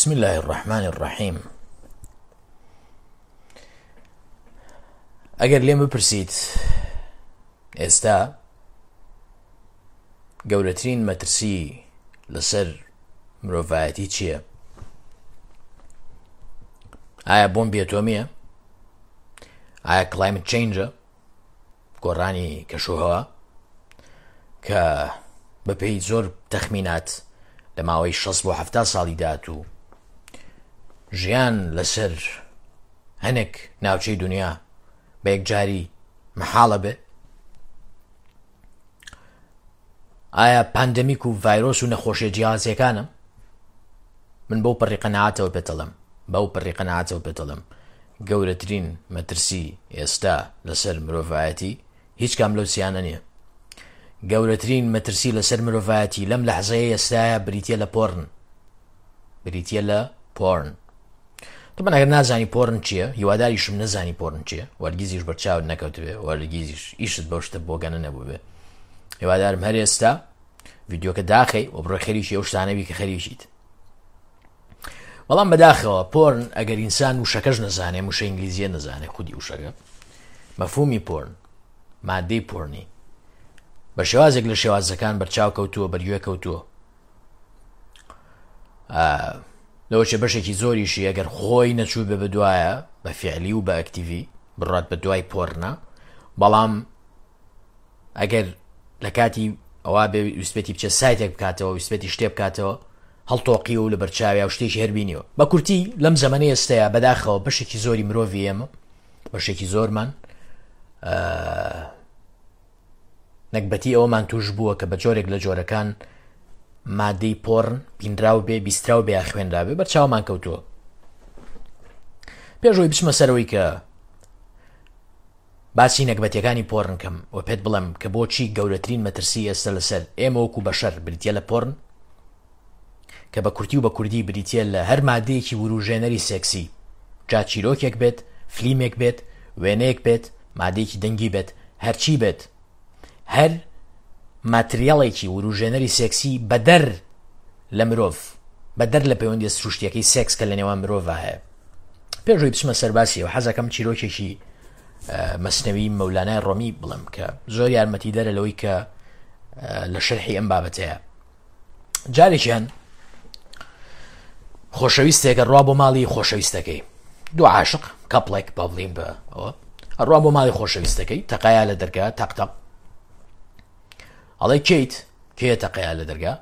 بسم الله الرحمن الرحیم ئەگەر لێم بپرسیت ئێستا گەورەترین مەترسی لەسەر مرۆڤایەتی چییە؟ ئایا بۆمبی ئەتۆمیە؟ ئایا کلایمت چینجە؟ گۆڕانی کەشوهەوا کە بەپێی زۆر تەخمینات لە ماوەی 6 بۆ 70 ساڵی داهاتوو ژیان لەسەر هەنێک ناوچەی دنیا بە یەکجاری مەحاڵە بێ ئایا پاندەمیک و ڤایرۆس و نەخۆشیە جیاوازیەکانە من بەو پەڕی قەنەعاتەوە پێتەڵم بەو پەڕی قەنەعاتەوە پێتەڵم گەورەترین مەترسی ئێستا لەسەر مرۆڤایەتی هیچ کام لەو سیانە نییە گەورەترین مەترسی لەسەر مرۆڤایەتی لەم لەحزەیە ئێستاە بریتە لە پۆرن بریتە لە پۆرن تەبەن ئەگەر نازانی پۆرن چییە هیواداریشم نەزانی پۆرن چییە وەرگیزیش بەرچاوت نەکەوتبێ وەرگیزیش ئیشت بەو شتە بۆگەنە نەبووبێ هیوادارم هەر ئێستا ڤیددیوکە داخەی و بڕۆ خەریکی ئەو شتانەبی کە خەریکیت بەڵام بەداخەوە پۆرن ئەگەر ئینسان وشەکەش نەزانێ وشە ئینگلیزیە نەزانێ خودی وشەکە مەفهومی پۆرن مادەی پۆرنی بە شێوازێک لە شێوازەکان بەرچاو کەوتووە بەرگوێ کەوتووە لەوەچێ بەشێکی زۆریشی ئەگەر خۆی نەچوو بێ بەدوایە بە فعلی و بە ئەکتیڤی بڕات بە دوای پۆرنە بەڵام ئەگەر لە کاتی ئەوە بێ ویستبێتی بچێت سایتێک بکاتەوە ویستبێتی شتێ بکاتەوە هەڵتۆقی و لە بەرچاویا و شتێکی هەربینیەوە بە کورتی لەم زەمەنی ئێستەیە بەداخەوە بەشێکی زۆری مرۆڤی ئێمە بەشێکی زۆرمان نەگبەتی ئەوەمان توش بووە کە بە جۆرێک لە جۆرەکان مادەی پۆرن بینراو بێ بیستراو بێ یا خوێنرابێ بەر چاومان کەوتووە پێشەوەی بچمە سەرەوەی کە باسی نەگبەتیەکانی پۆرن کەم و پێت بڵێم کە بۆچی گەورەترین مەترسی ئێستا لەسەر ئێمە وەکو بەشەر بریتە لە پۆرن کە بە کورتی و بە کوردی بریتە لە هەر مادەیەکی وروژێنەری سێکسی جا چیرۆکێک بێت فلیمێک بێت وێنەیەک بێت مادەیەکی دەنگی بێت هەرچی بێت هەر ماتریاڵێکی وروژێنەری سێکسی بەدەر لە مرۆڤ بەدەر لە پەیوەندی سروشتیەکەی سێکس کە لە نێوان مرۆڤ هەیە پێشوی بچمە سەرباسیەوە حەزەکەم چیرۆکێکی مەسنەوی مەولانای ڕۆمی بڵێم کە زۆر یارمەتی دەرە لەوەی کە لە شەرحی ئەم بابەتەیە جارێکیان خۆشەویستێکە ڕوا بۆ ماڵی خۆشەویستەکەی دوو عاشق کەپڵێک با بڵین بە ئەوە ئەڕوا بۆ ماڵی خۆشەویستەکەی تەقایا لە دەرگا تەق تەق ئەڵێ کەیت کێ تەقەیا لە دەرگا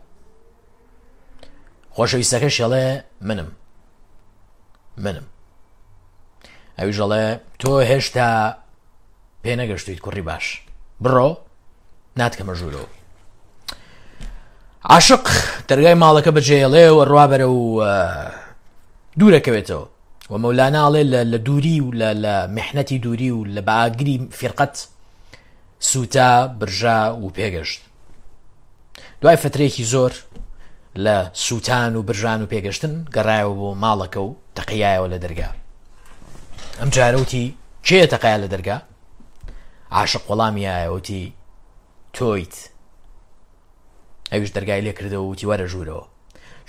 خۆشەویستەکەش ئەڵێ منم منم ئەویش ئەڵێ تۆ هێشتا پێ نەگەشتویت کوڕی باش بڕۆ ناتکەمە ژوورەوە عاشق دەرگای ماڵەکە بەجێڵێ و ڕوا بەرە و دوورەکەوێتەوە و مەولانا ئەڵێ لە دووری و لە میحنەتی دووری و لە بەئاگری فیرقەت سووتا برژا و پێگەشت دوای فترێکی زۆر لە سووتان و برژان و پێگەشتن گەڕایەوە بۆ ماڵەکە و تەقیایەوە لە دەرگا ئەم جارەوتی کێ تەقیا لە دەرگا عاشق وەڵامی یایەوتی تۆیت ئەویش دەرگای لێ کردەوە وتی وەرە ژوورەوە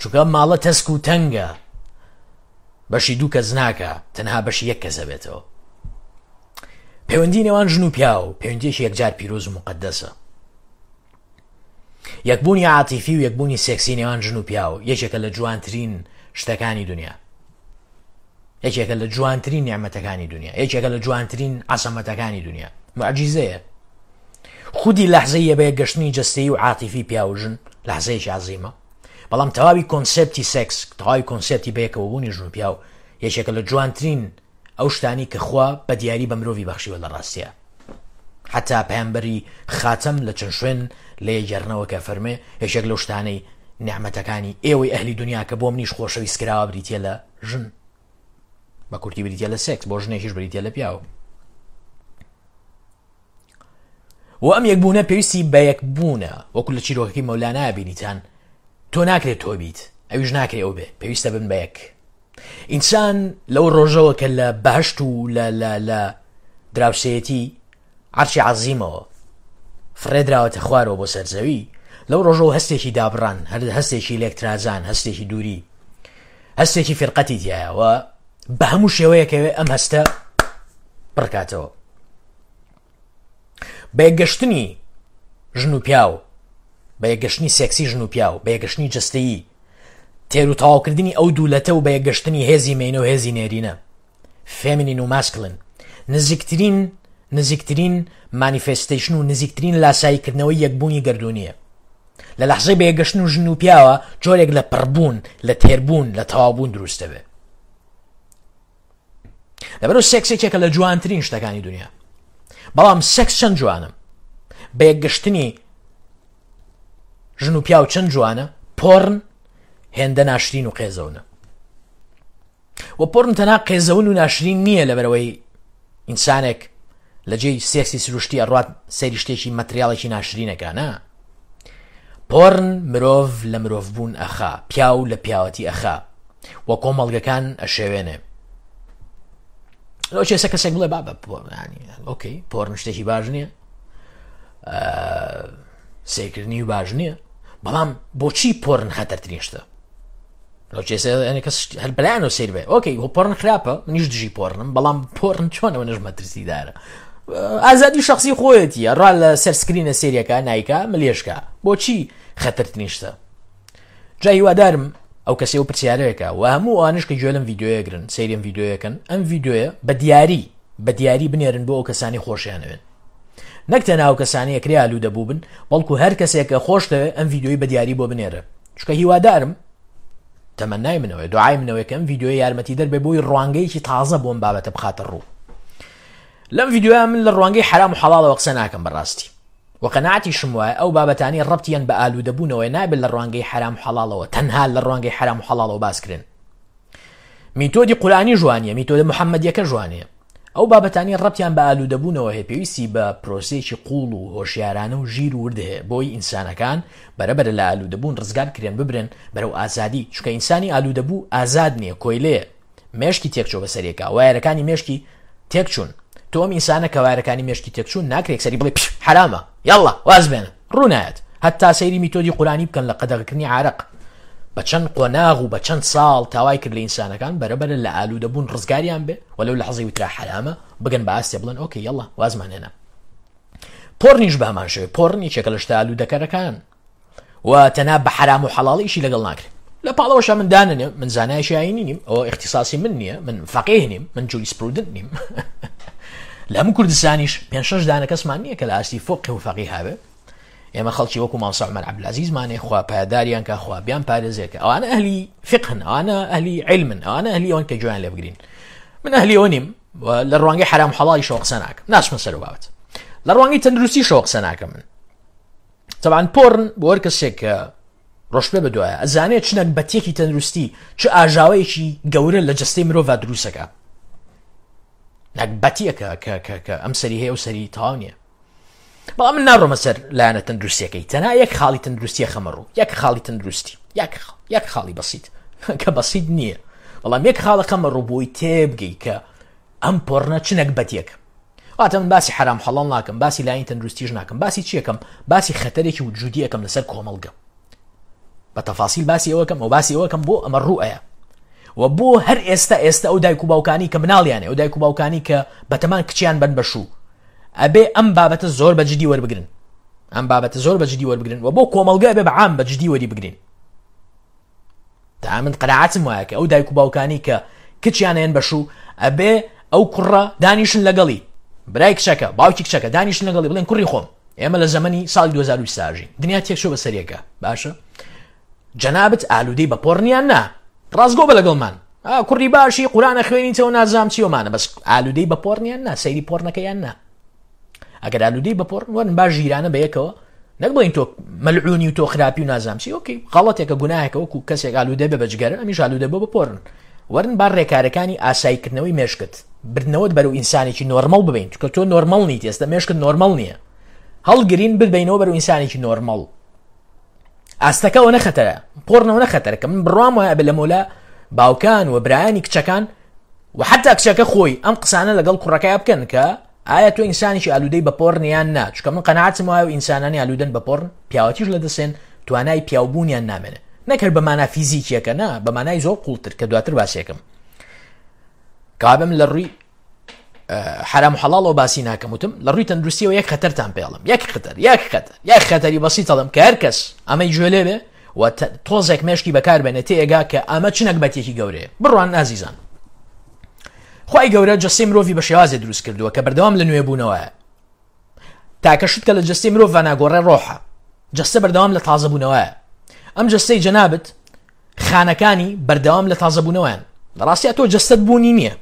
چونکە ئەم ماڵە تەسک و تەنگە بەشی دوو کەس ناکە تەنها بەشی یەک کەسە بێتەوە پەیوەندی نێوان ژن و پیاو پەیوەندیەکی یەکجار پیرۆز و مقدەسە یەکبوونی عاتیفی و یەکبوونی سێکسی نێوان ژن و پیاو یەکێکە لە جوانترین شتەکانی دنیا یەکێکە لە جوانترین نیعمەتەکانی دنیا یەکێکە لە جوانترین عەزەمەتەکانی دنیا معجیزەیە خودی لەحزەی بە یەکگەشتنی جەستەیی و عاتیفی پیاو و ژن لەحزەیەکی عەزیمە بەڵام تەواوی کۆنسێپتی سێکس تەواوی کۆنسێپتی بەیەکەوەبوونی ژن و پیاو یەکێکە لە جوانترین ئەو شتانی کە خوا بە دیاری بە مرۆڤی بەخشیوە لە ڕاستیە حتا پەیامبەری خاتەم لە چەند شوێن لێ گەڕنەوە کە فەرمێ یەکێک لەو شتانەی نیعمەتەکانی ئێوەی ئەهلی دنیا کە بۆ منیش خۆشەویست کراوە بریتە لە ژن بە کورتی بریتە لە سێکس بۆ ژنێکیش بریتە لە پیاو و ئەم یەکبوونە پێویستی بە یەکبوونە وەکو لە چیرۆکەکەی مەولانا بینیتان تۆ ناکرێت تۆ بیت ئەویش ناکرێ ئەو بێ پێویستە بن بە یەک ئینسان لەو ڕۆژەوە کە لە بەهشت و لە لە لە دراوسێتی عەرشی عەزیمەوە فڕێدراوەتە خوارەوە بۆ سەر زەوی لەو ڕۆژەوە هەستێکی دابڕان هەر هەستێکی لێکترازان هەستێکی دووری. هەستێکی فیرقەتی تایە و بە هەموو شێوەیەکەوێ ئەم هەستە پڕکاتەوە. بە یەکگەشتنی ژن و پیاو، بە یەکگەشتنی سێکسی ژن و پیاو، بە یەکگەشتنی جەستەیی، تێر و تەواوکردنی ئەو دوو لەتە و بە یەکگەشتنی هێزی مێینە و هێزی نێرینە، feminine و masculine، نزیکترین نزیکترین manifestation و نزیکترین لاساییکردنەوەی یەکبوونی گەردوونییە. لە لەحزەی بە یەکگەشتن و ژن و پیاوە جۆرێک لە پڕبوون، لە تێربوون، لە تەواوبوون دروست دەبێ. لەبەرو سێکس یەکێکە لە جوانترین شتەکانی دنیا بەڵام سێکس چەند جوانە بە یەکگەشتنی ژن و پیاو چەند جوانە پۆرن هێندە ناشرین و قێزەونە و پۆرن تەنها قێزەون و ناشرین نییە لەبەرەوەی ئینسانێک لە جێی سێکسی سروشتی ئەڕوات سەیری شتێکی مەتریاڵێکی ناشرینەکە نا پۆرن مرۆڤ لە مرۆڤبوون ئەخا پیاو لە پیاوەتی ئەخا و کۆمەڵگەکان ئەشێوێنێ لەو چێسە کەسێک بڵێ بابە okay پۆرن شتێکی باش نییە سیرکردنی باش نییە بەڵام بۆچی پۆرن خەتەرترین شتە کەس هەر بەلایانەوە سەیر بێ okay هۆ پۆرن خراپە منیش دژی پۆرنم بەڵام پۆرن چۆنەوە نەش مەترسیدارە ئازادی شخصی خۆیەتی ڕا لە سەر screen ە سێریەکە نایکا ملێشکە بۆچی خەتەرترین شتە جا هیوادارم ئەو کەسی و پرسیارەیەکە و هەموو ئەوانش کە گوێ لەم ڤیدیۆیەگرن سەیریم ڤیدیۆیەکەن ئەم ڤیدیۆیە بە دیاری بە دیاری بنێرن بۆ ئەو کەسانی خۆشیانەوێن نەک تەنها ئەو کەسانی ئەکرێ ئالوودە بووبن بەڵکو هەر کەسێک کە خۆشتەوێ ئەم ڤیدیۆی بە دیاری بۆ بنێرە چونکە هیوادارم تەمەنای منەوەی دوعای منەوەی کە ئەم ڤیدیۆیە یارمەتی دەر بێ بۆی ڕوانگەیەکی تازە بۆم بابەتە بخاتە ڕوو لەم ڤیدیۆیە من لە ڕوانگەی حرام و حەڵاڵەوە قسە ناکەم بەڕاستی و قەناعەتیشم وایە ئەو بابەتانی ڕەبتیان بە ئالوودەبوونەوەی نابێت لە ڕوانگەی حرام و حەڵاڵەوە تەنها لە ڕوانگەی حرام و حەڵاڵەوە باسکرێن میتۆدی قورئانی ژوانیە میتۆدە محەممەدیەکە ژوانەیە ئەو بابەتانی ڕەبتیان بە ئالوودەبوونەوە هەیە پێویستی بە پرۆسەیەکی قوڵ و هۆشیارانە و ژیر و ورد هەیە بۆی ئینسانەکان بەرەبەرە لە ئالوودەبوون ڕزگار کرێن ببرێن بەرەو ئازادی چونکە ئینسانی ئالوودەبوو ئازاد نییە کۆیلەیە مێشکی تێکچووە بەسەرێکا وایەرەکانی مێشکی تێکچوون تۆ ئەم ئینسانە کە وایەرەکانی مێشکی تێکچوون ناکرێک سەری بڵێ حرامە یاڵڵا واز بێنە ڕوونایەت هەتا سەیری میتۆدی قورانی بکەن لە قەدەغەکردنی عارەق بە چەند قۆناغ و بە چەند ساڵ تاوای کرد لە ئینسانەکان بەرەبەرە لە ئالوودەبوون ڕزگاریان بێ و لەو لەحزەی وترا حەرامە بگەن بە ئاستێ بڵێن okay یەڵا وازمان هێنا پۆرنیش بە هەمان شێوە پۆرن یەکێکە لە شتە ئالوودەکەرەکان و تەنها بە حەرام و حەڵاڵ ئیشی لەگەڵ ناکرێت لە پاڵەوەشە من داننێ من زانایشی ئاینی نیم ئەوە اختصاصی من نییە من فەقیه نیم من jurisprudent نیم لە هەموو کوردستانیش پێ شەش دانە کەسمان نییە کە لە ئاستی فقه و فەقیه هەبێ ئێمە خەڵکی وەکو مامۆستا عومەر عەبدولعەزیزمانێ خوا پایەداریان کە خوا بیان پارێزێ کە ئەوانە ئەهلی فقهن ئەوانە ئەهلی علمن ئەوانە ئەهلی ئەوەن کە گوێیان لێ بگرین من ئەهلی ئەوە نیم لە ڕوانگەی حرام حەڵاڵیشەوە قسە ناکەم ناچمە سەر بابەت لە ڕوانگەی تەندروستیشەوە قسە ناکەم من تەبعەن پۆرن بۆ هەر کەسێک کە ڕۆشتبێ بە دوایە ئەزانێت چ نەگبەتیەکی تەندروستی چ ئاژاوەیەکی گەورە لە جەستەی مرۆڤ دروستەکە نەگبەتیەکە کە کە کە ئەم سەری هەیە و سەری تەواو نییە بەڵام من ناڕۆمە سەر لایەنە تەندروستیەکەی تەنها یەک خاڵی تەندروستیە خەمە ڕوو یەک خاڵی تەندروستی یەک یەک خاڵی بەسیت کە بەسیت نییە بەڵام یەک خاڵە خەمە ڕوو بۆی تێبگەی کە ئەم پۆڕنە چ نەگبەتێک واتە من باسی حرام حەڵاڵ ناکەم باسی لاین تەندروستیش ناکەم باسی چیەکەم باسی خەتەرێکی وجودی ئەەکەم لەسەر کۆمەڵگە بە تەفاسیل باسی ئەوەکەم ئەو باسی ئەوەکەم بۆ ئەمە ڕوئەیە و بۆ هەر ئێستا ئێستا ئەو دایک و باوکانی کە مناڵیانە ئەو دایک و باوکانی کە بەتەمان کچیان بن بەشوو ئەبێ ئەم بابەتە زۆر بە جدی وەربگرن ئەم بابەتە زۆر بە جدی وەربگرن و بۆ کۆمەڵگە بێ بە عام بە جدی وەری بگرین تا من قەناعەتم وایە کە ئەو دایک و باوکانی کە کچیان هێن بەشوو ئەبێ ئەو کوڕە دانیشن لەگەڵی برای کچەکە باوکی کچەکە دانیشن لەگەڵی بڵێن کوڕی خۆم ئێمە لە زەمەنی ساڵی 2020 ئاژین دنیا تێکچوو بە سەریەکە باشە جەنابت ئالوودەی بە پۆڕنیان نا ڕاستگۆ بە لەگەڵمان کوڕی باشی قورانە خوێنیتەوە نازام چیۆمانە بەس ئالوودەی بە پۆڕنیان نا سەیری پۆڕنەکەیان نا ئەگەر ئالوودەی بە پۆڕن وەرن با ژیرانە بە یەکەوە نەک بڵین تۆ مەلعونی و تۆ خراپی و نازام چی okay غەڵەتێکە گوناهێکە وەکو کەسێک ئالوودە بێ بە جگەرە ئەمیش ئالوودە بۆ بە پۆرن وەرن با ڕێکارەکانی ئاساییکردنەوەی مێشکت بردنەوەت بەرەو ئینسانێکی نۆرمەڵ ببین چونکە تۆ نۆرمەڵ نیت ئێستا مێشکت نۆرمەڵ نییە هەڵگرین ببینەوە بەرەو ئینسانێکی نۆرمەڵ ئاستەکە ئەوە نەخەتەرە پۆڕنەوە نەخەتەرە کە من بڕوام وایە بە لە مۆلا باوکان و برایانی کچەکان و حتا کچەکە خۆی ئەم قسانە لەگەڵ کوڕەکەی بکەن کە ئایا تۆ ئینسانێکی ئالوودەی بە پۆڕن یان نا چونکە من قەناعەتم وایە و ئینسانانی ئالوودەن بە پۆڕن پیاوەتیش لە دەسێن توانای پیاوبوونیان نامێنێ. نەک هەر بە مانا فیزیکیەکە نا، بە مانای زۆر قوڵتر کە دواتر باسێکم. کابم لە ڕووی حرام و حەڵاڵەوە باسی ناکەم وتم لە ڕووی تەندروستیەوە یەک خەتەرتان پێڵم یەک خەتەر یەک خەتەر یەک خەتەری بەسیت ئەڵێم کە هەر کەس ئەمەی گوێ لێ بێ و تۆزێک مێشکی بەکار بێنێ تێگا کە ئەمە چ نەگبەتێکی گەورەیە. بڕوان ئازیزان خوای گەورە جەستەی مرۆڤی بە شێوازێ دروست کردووە کە بەردەوام لە نوێبوونەوەیە. تاکە شت کە لە جەستەی مرۆڤ ناگۆڕێ ڕۆحە. جەستە بەردەوام لە تازەبوونەوەیە. ئەم جەستەی جەنابت خانەکانی بەردەوام لە تازەبوونەوەیان. لە ڕاستیا تۆ جەستەت بوونی نییە.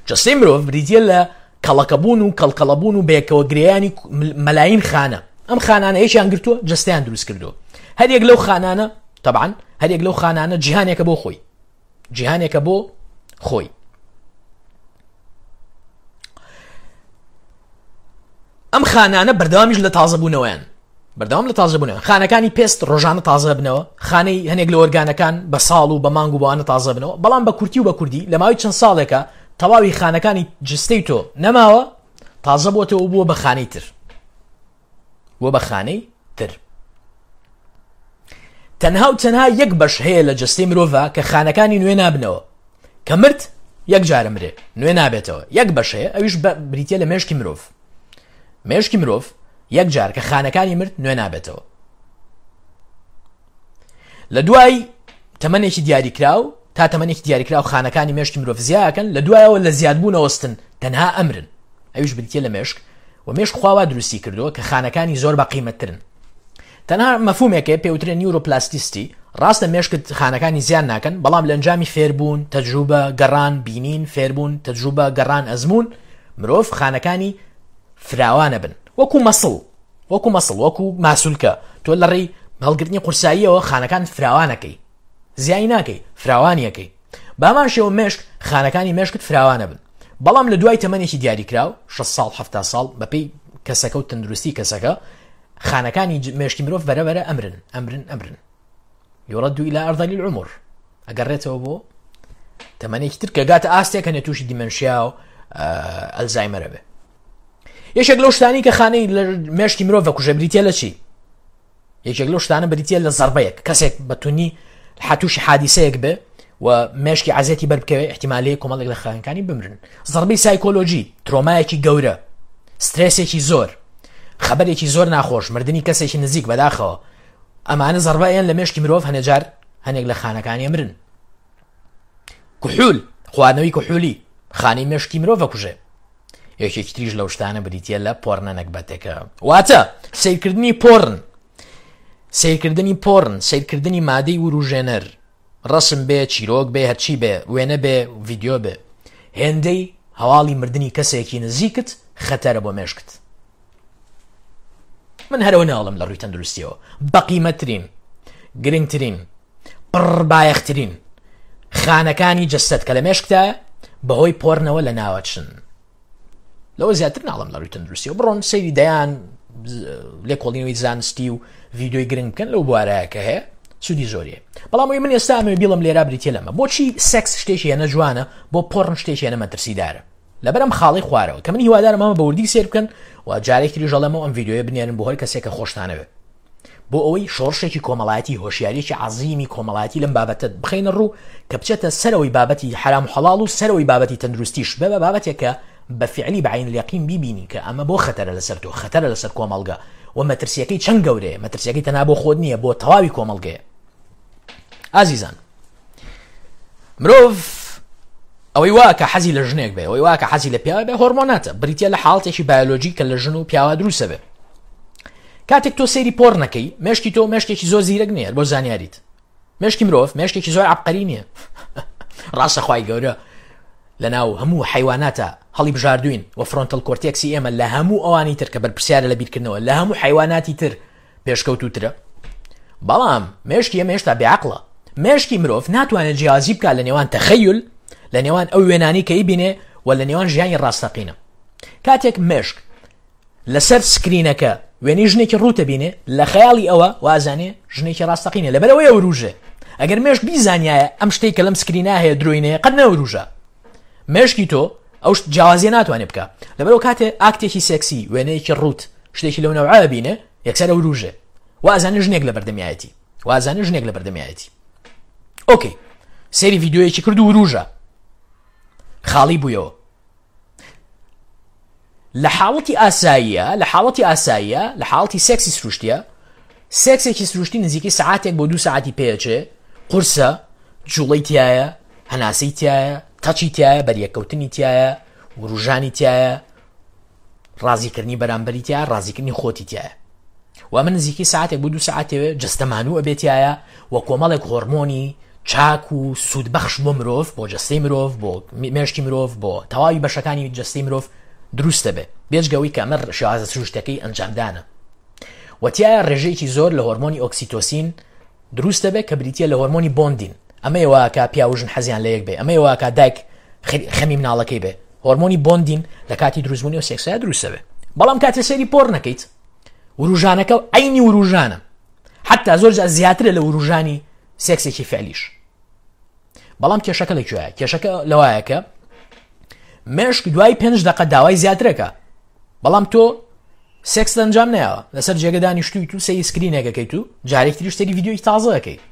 جەستەی مرۆڤ بریتییە لە کەڵەکەبوون و کەڵکەڵەبوون و بەیەکەوە گرێیانی مەلاین خانە. ئەم خانانە یەکیان گرتووە جەستەیان دروست کردووە. هەریەک لەو خانانە تەبعەن هەریەک لەو خانانە جیهانێکە بۆ خۆی. جیهانێکە بۆ خۆی. ئەم خانانە بەردەوامیش لە تازەبوونەوەیان بەردەوام لە تازەبوونەوە خانەکانی پێست ڕۆژانە تازە بنەوە خانەی هەنێک لە ئۆرگانەکان بە ساڵ و بە مانگ و بەوانە تازە بنەوە بەڵام بە کورتی و بە کوردی لە ماوەی چەند ساڵێکە تەواوی خانەکانی جستەی تۆ نەماوە تازە بۆتەوە بووە بە خانەی تر بووە بە خانەی تر تەنها و تەنها یەک بەش هەیە لە جەستەی مرۆڤ کە خانەکانی نوێ نابنەوە کە مرد یەک جارە مرێ نوێ نابێتەوە یەک بەش هەیە ئەویش بریتە لە مێشکی مرۆڤ مێشکی مرۆڤ یەک جار کە خانەکانی مرد نوێ نابێتەوە لە دوای تەمەنێکی دیاریکراو تا تەمەنێکی دیاریکراو خانەکانی مێشکی مرۆڤ زیاکەن لە دوایەوە لە زیادبوونەوەستن تەنها ئەمرن ئەویش بریتە لە مێشک و مێشک خوا وا دروستی کردووە کە خانەکانی زۆر بە قیمەتترن تەنها مەفهومێک هەیە پێوترێ neuroplasticity ڕاستە مێشکت خانەکانی زیان ناکەن بەڵام لە ئەنجامی فێربوون تەجروبە گەڕان بینین فێربوون تەجروبە گەڕان ئەزموون مرۆڤ خانەکانی فراوانە بن وەکو muscle وەکو muscle وەکو ماسولکە تۆ لە ڕێی هەڵگرتنی قورساییەوە خانەکان فراوانەکەی زیای ناکەی فراوانیەکەی بامان شێوە مێشک خانەکانی مێشکت فراوانە بن بەڵام لە دوای تەمەنێکی دیاریکراو 6 ساڵ 70 ساڵ بەپێی کەسەکە و تەندروستی کەسەکە خانەکانی مێشکی مرۆڤ بەرە بەرە ئەمرن ئەمرن ئەمرن يرد إلى أرذل العمر ئەگەڕێتەوە بۆ تەمەنێکی تر کە گاتە ئاستێک هەنێ تووشی dementia و ئەلزایمەرە بێ یەکێک لەو شتانی کە خانەی لە مێشکی مرۆڤ کوژە بریتە لە چی یەکێک لەو شتانە بریتە لە زەربەیەک کەسێک بە تونی حتوشی حادیسەیەک بێ و مێشکی عزیەتی بەر بکەوێ احتیمالەیە کۆمەڵێک لە خانەکانی بمرن زەربەی سایکۆلۆژی ترۆمایەکی گەورە سترێسێکی زۆر خەبەرێکی زۆر ناخۆش مردنی کەسێکی نزیک بەداخەوە ئەمانە زەربەیان لە مێشکی مرۆڤ هەنێجار هەنێک لە خانەکانی مرن کحول خواردنەوەی کحولی خانەی مێشکی مرۆڤ کوژێ یەکێکی تریش لەو شتانە بریتە لە پۆرنە نەگبەتێکە واتە سیرکردنی پۆرن سیرکردنی پۆرن سیرکردنی مادەی وروژێنەر ڕسم بێ چیرۆک بێ هەرچی بێ وێنە بێ ڤیددیو بێ هێندەی هەواڵی مردنی کەسێکی نزیکت خەتەرە بۆ مێشکت من هەرەوە ناڵم لە ڕووی تەندروستیەوە بەقیمەترین گرنگترین پڕبایەخترین خانەکانی جەستەت کە لە مێشکتایە بەهۆی پۆرنەوە لە ناوەچن لەوە زیاتر ناڵم لە ڕووی تەندروستیەوە بڕۆن سەیری دەیان لێکۆڵینەوەی زانستی و ڤیددیوی گرنگ بکەن لەو بوارەیە کە هەیە سوودی زۆریە بەڵام ئەوی من ئێستا ئەمەوێ بیڵم لێرا بریتە لەمە بۆچی سێکس شتێکی هێنە جوانە بۆ پۆرن شتێکی هێنە مەترسیدارە لەبەر ئەم خاڵەی خوارەوە کە من هیوادارم ئەمە بە وردی سێر بکەن و جارێک تریش ئەڵێمەوە ئەم ڤیدیۆیە بنێرن بۆ هەر کەسێک کە خۆشتانەوێ بۆ ئەوەی شۆڕشێکی کۆمەڵایەتی هۆشیاریەکی عەزیمی کۆمەڵایەتی لەم بابەتە بخەینە ڕوو کە بچێتە سەرەوەی بابەتی حرام و حەڵاڵ و سەرەوەی بابەتی تەندروستیش بە بە بابەتێک کە بە فعلی بە عین الیقین بیبینی کە ئەمە بۆ خەتەرە لەسەر تۆ خەتەرە لەسەر کۆمەڵگە و مەترسیەکەی چەند گەورەیە مەترسیەکەی تەنها بۆ خۆت نییە بۆ تەواوی کۆمەڵگەیە ئازیزان مرۆڤ ئەوەی وا کە حەزی لە ژنێک بێ ئەوەی وا کە حەزی لە پیاوە بێ هۆرمۆناتە بریتە لە حاڵتێکی بایۆلۆژی کە لە ژن و پیاوە دروستە بێ کاتێک تۆ سەیری پۆڕ نەکەی مێشکی تۆ مێشکێکی زۆر زیرەک نییە بۆ زانیاریت مێشکی مرۆڤ مێشکێکی زۆر عبقەری نییە ڕاستە خوای گەورە لە ناو هەموو حیواناتە هەڵی بژاردوین و frontal cortex ی ئێمە لە هەموو ئەوانی تر کە بەرپرسیارە لە بیرکردنەوە لە هەموو حیواناتی تر پێشکەوتووترە بەڵام مێشکی ئێمە هێشتا بێعقڵە مێشکی مرۆڤ ناتوانێت جیازی بکات لە نێوان تەخەیل لە نێوان ئەو وێنانی کە ئیبینێ و لە نێوان ژیانی ڕاستەقینە کاتێک مێشک لەسەر سکرینەکە وێنەی ژنێکی ڕووتە بینێ لە خەیاڵی ئەوە وازانێ ژنێکی ڕاستەقینە لەبەرەوەی ئەوروژێ ئەگەر مێشک بیزانایە ئەم شتێک کە لەم سکرینا هەیە درۆینەیە قەت نەوروژە مێشکی تۆ ئەو جیاوازیە ناتوانێت بکە لەبەرەوە کاتێ ئاکتێکی سێکسی وێنەیەکی ڕوت شتێکی لەو نەوعە بینێ یەکسەر ئەوروژێ و ئەزانێ ژنێک لە بەردەمیایەتی. وازانێ ژنێک لە بەردەمیایەتی. ئۆکەی سەیری ڤیدیۆیەکی کرد و وروژە خاڵی بوویەوە. لە حاڵەتی ئاساییە لە حاڵەتی ئاساییە لە حاڵەتی سێکسی سروشتیە سێکسێکی سروشتی نزیکەی سعاتێک بۆ دوو سعاتی پێچێ قورسە جوڵەی تایە هەناسەی تایە تەچی تایە بەریەکەوتنی تایە وروژانی تایە ڕازیکردنی بەرامبەری تایە ڕازیکردنی خۆتی تایە و ئەمە نزیکەی ساعتێک بۆ دوو ساعتێ جەستەمانوو ئەبێتایە و کۆمەڵێک هۆرمۆنی چاک و سوودبەخش بۆ مرۆڤ بۆ جەستەی مرۆڤ بۆ مێشکی مرۆڤ بۆ تەواوی بەشەکانی جەستەی مرۆڤ دروست دەبێت بێجگەوەی کە ئەمە شێوازە سروشتەکەی ئەنجامدانە و تایە ڕێژەیەکی زۆر لە هۆرمۆنی ئۆکسیتۆسین دروست دەبێت کە بریتە لە هۆرمۆنی bonding. ئەمەیە واکە پیاو و ژن حەزیان لە یەک بێ، ئەمەیە واکە دایک خەمی مناڵەکەی بێ. هۆرمۆنی bonding لە کاتی دروستبوونی ئەو سێکسەیە دروست دەبێ. بەڵام کاتێ سەیری پۆڕن نەکەیت وروژانەکە عەینی وروژانە، حتا زۆر جار زیاترە لە وروژانی سێکسێکی فعلیش. بەڵام کێشەکە لە کوێیە؟ کێشەکە لەوایە کە مێشک دوای پێنج دقە داوای زیاترەکە، بەڵام تۆ سێکست ئەنجام نەیاوە، لەسەر جێگە دانیشتوویت و سەیری سکرینێک ئەکەیت و جارێکی تریش سەیری ڤیدیۆیەکی تازە ئەکەیت،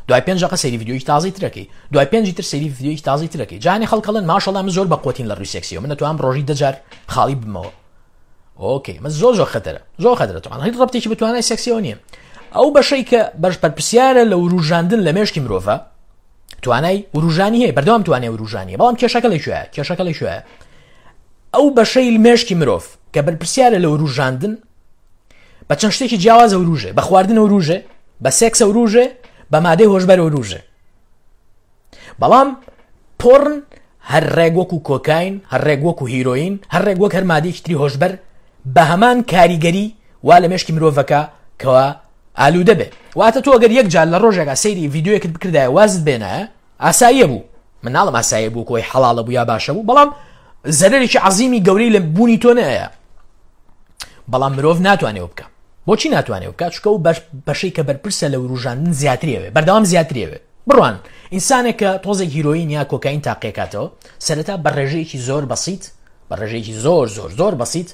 دوای پێنج دەقە سەیری ڤیدیۆیەکی تازەی تر ئەکەی، دوای پێنجی تر سەیری ڤیدیۆیەکی تازەی تر ئەکەی. جا هەنێ خەڵک ئەڵێن ماشەڵا من زۆر بەقوەتین لە ڕووی سێکسیەوە، من ئەتوانم ڕۆژی دە جار خاڵی ببمەوە. ئۆکەی من زۆر زۆر خەتەرە، زۆر خەتەرە، تەبعەن هیچ ڕەبتێکی بە توانای سێکسیەوە نییە. ئەو بەشەی کە بەش بەرپرسیارە لە وروژاندن لە مێشکی مرۆڤە، توانای وروژانی هەیە، بەردەوام توانای وروژانی، بەڵام کێشەکە لە کوێیە؟ کێشەکە لە کوێیە؟ ئەو بەشەی مێشکی مرۆڤ کە بەرپرسیارە لە وروژاندن بە چەند شتێکی جیاواز وروژێ، بە خواردن وروژێ، بە سێکس وروژێ، بە مادەی هۆشبەر وروژێ. بەڵام پۆڕن هەر ڕێک وەکو کۆکاین، هەر ڕێک وەکو هیرۆین، هەر ڕێک وەک هەر مادەیەکی تری هۆشبەر بە هەمان کاریگەری وا لە مێشکی مرۆڤەکە کەوا ئالوودە بێ. واتە تۆ ئەگەر یەک جار لە ڕۆژێکا سەیری ڤیدیۆیەکت بکردایە وازت بێنایە ئاساییە بوو، من ناڵم ئاساییە بوو کۆی حەڵاڵە بوو یا باشە بوو، بەڵام زەرەرێکی عەزیمی گەورەی لە بوونی تۆ نەیە. بەڵام مرۆڤ ناتوانێت بکە. بۆچی ناتوانێت بکە؟ چونکە ئەو بەشەی کە بەرپرسە لە وروژاندن زیاتریەوێ، بەردەوام زیاتریەوێ. بڕوان ئینسانێک کە تۆزێک هیرۆین یا کۆکاین تاقیەکاتەوە، سەرەتا بە ڕێژەیەکی زۆر بەسیت، بە ڕێژەیەکی زۆر زۆر زۆر بەسیت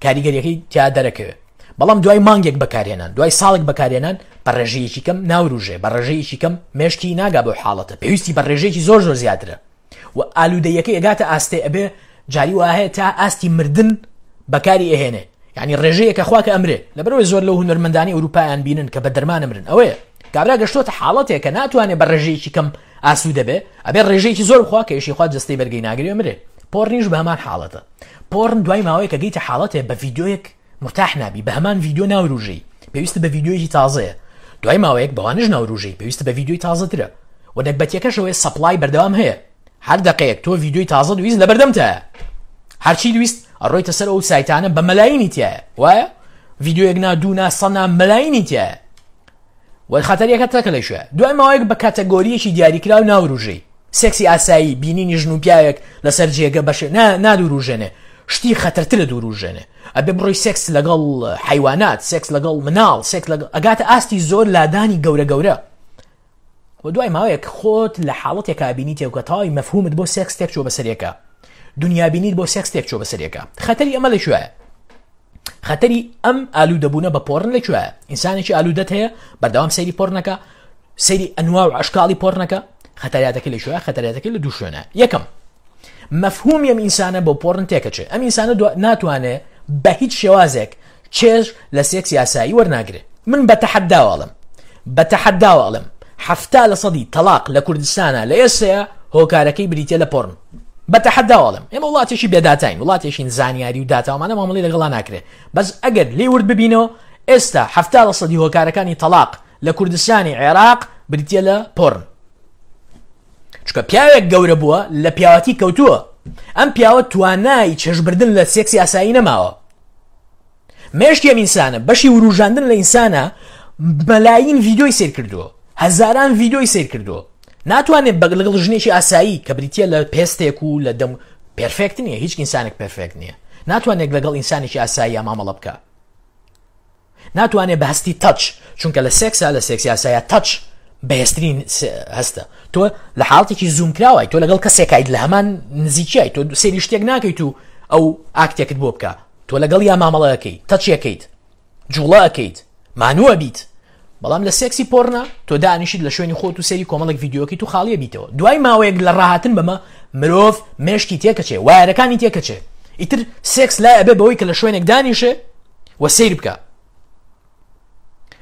کاریگەریەکەی تیا دەرەکەوێت. بەڵام دوای مانگێک بەکارهێنان، دوای ساڵێک بەکارهێنان بە ڕێژەیەکی کەم ناوروژێ، بە ڕێژەیەکی کەم مێشکی ناگا بەو حاڵەتە، پێویستی بە ڕێژەیەکی زۆر زۆر زیاترە و ئالوودەیەکەی ئەگاتە ئاستێ ئەبێ جاری وا هەیە تا ئاستی مردن بەکاری ئەهێنێ، یعنی ڕێژەیەکە خوا کە ئەمرێ. لەبەرئەوەی زۆر لەو هونەرمەندانی ئەوروپایان بینن کە بە دەرمان ئەمرن، ئەوەیە کابرا گەشتۆتە حاڵەتێک کە ناتوانێ بە ڕێژەیەکی کەم ئاسوودە بێ، ئەبێ ڕێژەیەکی زۆر بخوا کە ئیشی خوا جەستەی بەرگەی ناگرێ ئەمرێ. پۆڕنیش بە هەمان حاڵەتە. پۆڕن دوای ماوەیەک کە گەیتە حاڵەتێ بە ڤیدیۆیەک مرتاح نابی، بە هەمان ڤیدیۆ ناوروژێی، پێویستت بە ڤیدیۆیەکی تازەیە. دوای ماوەیەک بەوانەش ناوروژێی، پێویستت بە ڤیدیۆی تازەترە. و نەگبەتیەکەش ئەوەیە supply بەردەوام هەیە، هەر دەقەیەک تۆ ڤیدیۆی تازەت ویست لەبەردەمتایە، هەرچیت ویست ئەڕۆیتە سەر ئەو سایتانە بە مەلاینی تایە، وایە ڤیدیۆیەک نا دوو نا سە نا مەلاینی تایە. و خەتەریەکە تەکە لە کوێ؟ دوای ماوەیەک بە کاتەگۆریەکی دیاریکراو ناوروژێی. سێکسی ئاسایی، بینینی ژن و پیاوێک لەسەر جێگە بەشێ نا نادوروژێنێ، شتی خەتەرترە دوروژێنێ. ئەبێ بڕۆی سێکس لەگەڵ حەیوانات، سێکس لەگەڵ مناڵ، سێکس لەگەڵ ئەگاتە ئاستی زۆر لادانی گەورە گەورە. و دوای ماوەیەک خۆت لە حاڵەتێکا بینی تێکە تەواوی مەفهومت بۆ سێکس تێک چووە بەسەرێکە، دنیابینیت بۆ سێکس تێک چووە بەسەرێکە. خەتەری ئەمە لە کوێیە؟ خەتەری ئەم ئالوودەبوونە بە پۆڕن لە کوێیە؟ ئینسانێکی ئالوودەت هەیە بەردەوام سەیری پۆڕنەکە، سەیری ئەنوا و ئەشکاڵی پۆڕنەکە، خەتەریاتەکەی لە کوێیە؟ خەتەریاتەکەی لە دوو شوێنە. یەکەم، مەفهومی ئەم ئینسانە بۆ پۆڕن تێکەچێ. ئەم ئینسانە ناتوانێ بە هیچ شێوازێک چێژ لە سێکسی ئاسایی وەرناگرێ. من بە تەحەداوە ئەڵێم، بە تەحەداوە ئەڵێم 70 لە سەدی تەلاق لە کوردستانە لە ئێستەیە هۆکارەکەی بریتیە لە پۆڕن. بە تەحەداوە ئەڵێم ئێمە وڵاتێکی بێداتاین، وڵاتێکین زانیاری و داتاومانە مامەڵەی لەگەڵا ناکرێ. بەس ئەگەر لێی ورد ببینەوە ئێستا 70 لە سەدی هۆکارەکانی تەلاق لە کوردستانی عێراق بریتیە لە پۆڕن. چونکە پیاوێک گەورە بووە لە پیاوەتی کەوتووە، ئەم پیاوە توانای چێژبردن لە سێکسی ئاسایی نەماوە. مێشکی ئەم ئینسانە بەشی وروژاندن لە ئینسانە مەلاین ڤیدیۆی سەیر کردووە، هەزاران ڤیدیۆی سەیر کردووە، ناتوانێت بە لەگەڵ ژنێکی ئاسایی کە بریتیە لە پێستێک و لە دەم perfect نییە، هیچ ئینسانێک perfect نییە، ناتوانێت لەگەڵ ئینسانێکی ئاسایی مامەڵە بکە. ناتوانێت بە هەستی touch، چونکە لە سێکسا لە سێکسی ئاسایە touch بەهێزترین هەستە. تۆ لە حاڵەتێکی زووم کراوای، تۆ لەگەڵ کەسێکایت لە هەمان نزیکیای، تۆ سەیری شتێک ناکەیت و ئەو ئاکتێکت بۆ بکە، تۆ لەگەڵ یا مامەڵەکەی touch ەکەیت، جوڵە ئەکەیت، مانوو ئەبیت. بەڵام لە سێکسی پۆرنا تۆ دانیشیت لە شوێنی خۆت و سەیری کۆمەڵێک ڤیدیۆکەیت و خاڵیە بیتەوە دوای ماوەیەک لە ڕاهاتن بەمە مرۆڤ مێشکی تێکەچێ وایەرەکانی تێکەچێ ئیتر سێکس لای ئەبێ بەوەی کە لە شوێنێک دانیشێ و سەیر بکە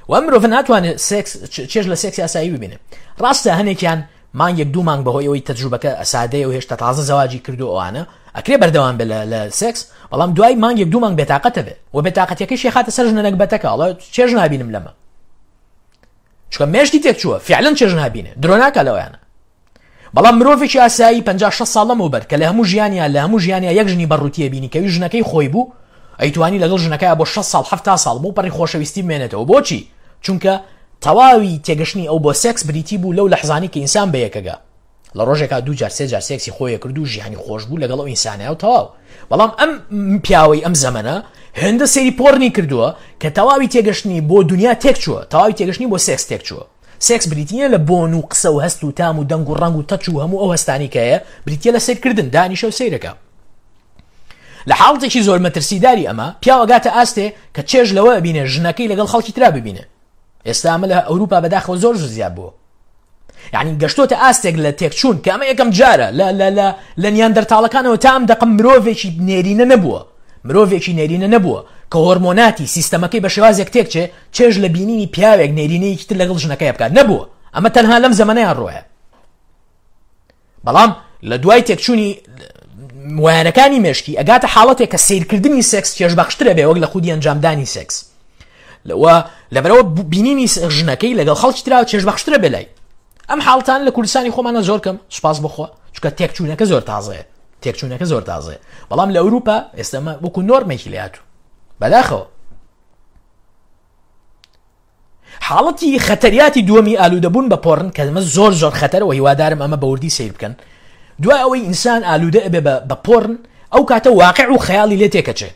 و ئەم مرۆڤ ناتوانێت سێکس چێژ لە سێکسی ئاسایی ببینێ ڕاستە هەنێکیان مانگێک دوو مانگ بەهۆی ئەوەی تەجروبەکە سادەیە و هێشتا تازە زەواجی کردو ئەوانە ئەکرێ بەردەوام بێ لە سێکس بەڵام دوای مانگێک دوو مانگ بێتاقەتە بێ و بێتاقەتەکەشی خاتە سەر ژنە نەگبەتەکە ئەڵێ چێژ نابینم لەمە چونکە مێشکی تێک چووە فعلەن چێژ نابینێ درۆ ناکا لەوەیانە بەڵام مرۆڤێکی ئاسایی 50 60 ساڵ لەمەوبەر کە لە هەموو ژیانیا لە هەموو ژیانیا یەک ژنی بەڕووتیە بینی کەوی ژنەکەی خۆی بوو ئەیتوانی لەگەڵ ژنەکەی بۆ 6 ساڵ 70 ساڵ بۆ پەڕی خۆشەویستی بمێنێتەوە بۆچی چونکە تەواوی تێگەشتنی ئەو بۆ سێکس بریتی بوو لەو لەحزانی کە ئینسان بەیەکەگا لە ڕۆژێکا دوو جار سێ جار سێکسی خۆی کرد و ژیانی خۆش بوو لەگەڵ ئەو ئینسانە و تەواو بەڵام ئەم پیاوەی ئەم زەمەنە هێندە سەیری پۆرنی کردووە کە تەواوی تێگەشتنی بۆ دنیا تێک چووە تەواوی تێگەشتنی بۆ سێکس تێک چووە سێکس بریتیە لە بۆن و قسە و هەست و تام و دەنگ و ڕەنگ و touch و هەموو ئەو هەستانی کە هەیە بریتیە لە سەیرکردن دانیشە و سەیرەکە لە حاڵەتێکی زۆر مەترسیداری ئەمە پیاو ئەگاتە ئاستێ کە چێژ لەوە ئەبینێ ژنەکەی لەگەڵ خەڵکی ترا ببینێ ئێستا ئەمە لە ئەوروپا بەداخەوە زۆر زۆر زیاد بووە یعنی گەشتۆتە ئاستێک لە تێکچوون کە ئەمە یەکەم جارە لە لە لە لە نیاندەرتاڵەکانەوە تا ئەم دەقە مرۆڤێکی نێرینە نەبووە مرۆڤێکی نێرینە نەبووە کە هۆرمۆناتی سیستەمەکەی بە شێوازێک تێکچێ چێژ لە بینینی پیاوێک نێرینەیەکی تر لەگەڵ ژنەکەی بکات نەبووە ئەمە تەنها لەم زەمەنەیان ڕۆیە بەڵام لە دوای تێکچوونی وایەرەکانی مێشکی ئەگاتە حاڵەتێک کە سیرکردنی سێکس چێژبەخشترە بێ وەک لە خودی ئەنجامدانی سێکس لەوە لەبەرەوە بینینی ژنەکەی لەگەڵ خەڵکی ترا چێژبەخشترە بێ لای ئەم حاڵتان لە کوردستانی خۆمانە زۆر کەم سوپاس بخوا چونکە تێکچوونەکە زۆر تازەیە تێکچوونەکە زۆر تازەیە بەڵام لە ئەوروپا ئێستەمە وەکو نۆرمێکی لاتوو بەداخەوە حاڵەتی خەتەریاتی دووەمی ئالوودەبوون بە پۆڕن کە ئەمە زۆر زۆر خەتەرە و هیوادارم ئەمە بە وردی سەیر بکەن دوای ئەوەی ئینسان ئالوودە ئەبێ بە پۆڕن ئەو کاتە واقع و خەیاڵی لێ تێکەچێ